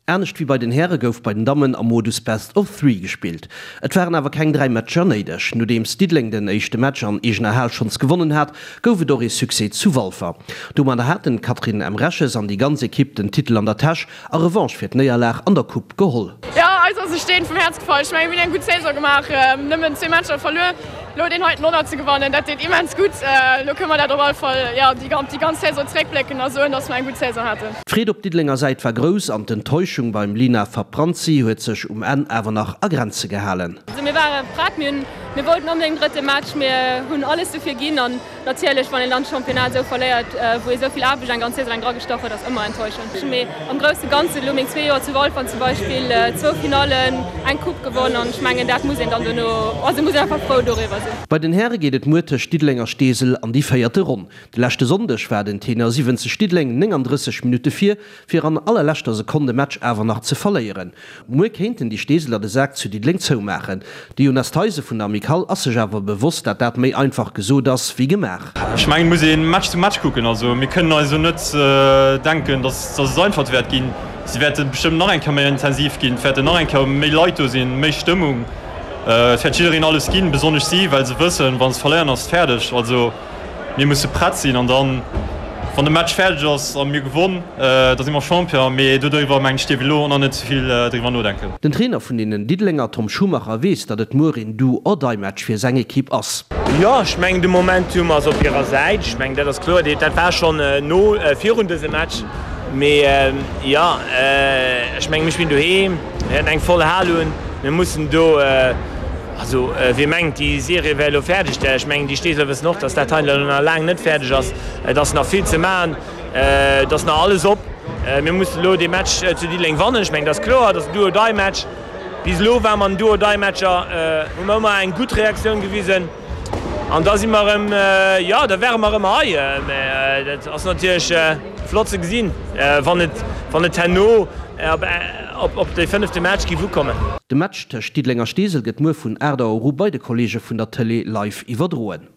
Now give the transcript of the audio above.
Anescht wéi bei den Häre gouf bei den Dammen am Modus Best of Three gespillt. Et waren awer keng 3 Matcher néideg. Nodeems Diddeleng den éischte Match an eegener Hal schonns gewonnen hat, gouf et och ee Succès zu Walfer. Domadder haten d'Catherine Emreches an déi ganz Ekipp den Titel an der Täsch a Revanche fir d'Néierlag an der Coupe geholl. Jo, eis ass e Steen vum Häerz gefall. Ech mengen, mir hunn eng gutt Saison gemaach, nëmmen zwee Matcher verluer. Elo deen heiten Honnert ze gewannen, dat deet immens gutt. Elo kënne mer dat op all Fall, jo, déi ganz Saison zeréckblécken a soen, dass mer eng gutt Saison haten. D'Freed op Diddelenger Säit war grouss an d'Enttäuschung beim Lina Fabranzi huet sech um Enn awer nach a Grenze gehalen. Also mir ware prett, mir hunn, mir wollten onbedéngt den drëtte Match, mir hunn alles dofir ginn an natierlech wann een dann d'Championnat esou verléiert, wou ee sou vill Aarbecht eng ganz Saison laang dragestach huet, ass ëmmer enttäuschend. Mee am grousse Ganzen, elo meng zwee Joer zu Walfer zum Beispill, zwou Finallen, eng Coupe gewonn an ech mengen dat muss een dann dono, also muss een einfach frou doriwwer sinn. Bei den Häre geet et muer tëscht Diddeleng a Steesel an déi véierte Ronn. De leschte Sonndeg war den Tenor 70 Diddeleng 39 Minutte vir, fir an allerleschter Sekonn de Match awer nach ze verléieren. Muer kéinten déi Steeseler de Sak zu Diddeleng zoumaachen. De Jonas Theisen vun der Amicale ass sech awer bewosst, dat dat méi einfach gesot ass wéi gemaach. Ech mengen, et muss ee Match zu Match kucken. Also mir kënnen eis elo net denken, datt et einfach wäert ginn. Si wäerte bestëmmt nach eng Kéier méi intensiv ginn, et wäerten nach eng Kéier méi Leit do sinn, méi Stëmmung. Et wäert jiddereen alles ginn, besonnesch si, well se wëssen, wa se verléieren, ass et fäerdeg. Also Mir musse prett sinn an dann, wann de Match fäerdeg ass a mir gewonn, da si mer Champion. Mee dodriwwer, mengen ech, dierf ee elo och nach net ze vill driwwer nodenken. Den Trainer vun deenen Diddelenger, Tom Schumacher, weess, datt et muer een Do-or-Die-Match fir seng Ekipp ass. Jo, ech mengen de Momentum ass op hirer Säit. Ech mengen dat ass kloer. Dat war schonn no virun dësem Match. Mee jo, ech mengen mir spillen doheem, mir wäerten eng voll Hal hunn. Mir mussen do. Also, wie mengt, déi Serie wär elo fäerdeg, ech mengen, déi Steeseler wëssen och, dass dat hei elo nach laang net fäerdeg ass. Et ass nach vill ze maachen, et ass nach alles op. Mir mussen elo dee Match zu Diddeleng wannen. Ech mengen, dat ass kloer, dat ass en Do-or-die-Match. Bis elo ware mer an den Do-or-die-Matcher, hu mer ëmmer eng gutt Reaktioun gewisen an da si mer erëm, jo, da ware mer erëm hei. Mä dat ass natierlech flott ze gesinn, wann et, wann et herno op de fënnefte Match géif ukommen. De Match tëscht Diddeleng a Steesel gëtt muer vun 8 Auer u bei de Kolleege vun der Tëlee live iwwerdroen.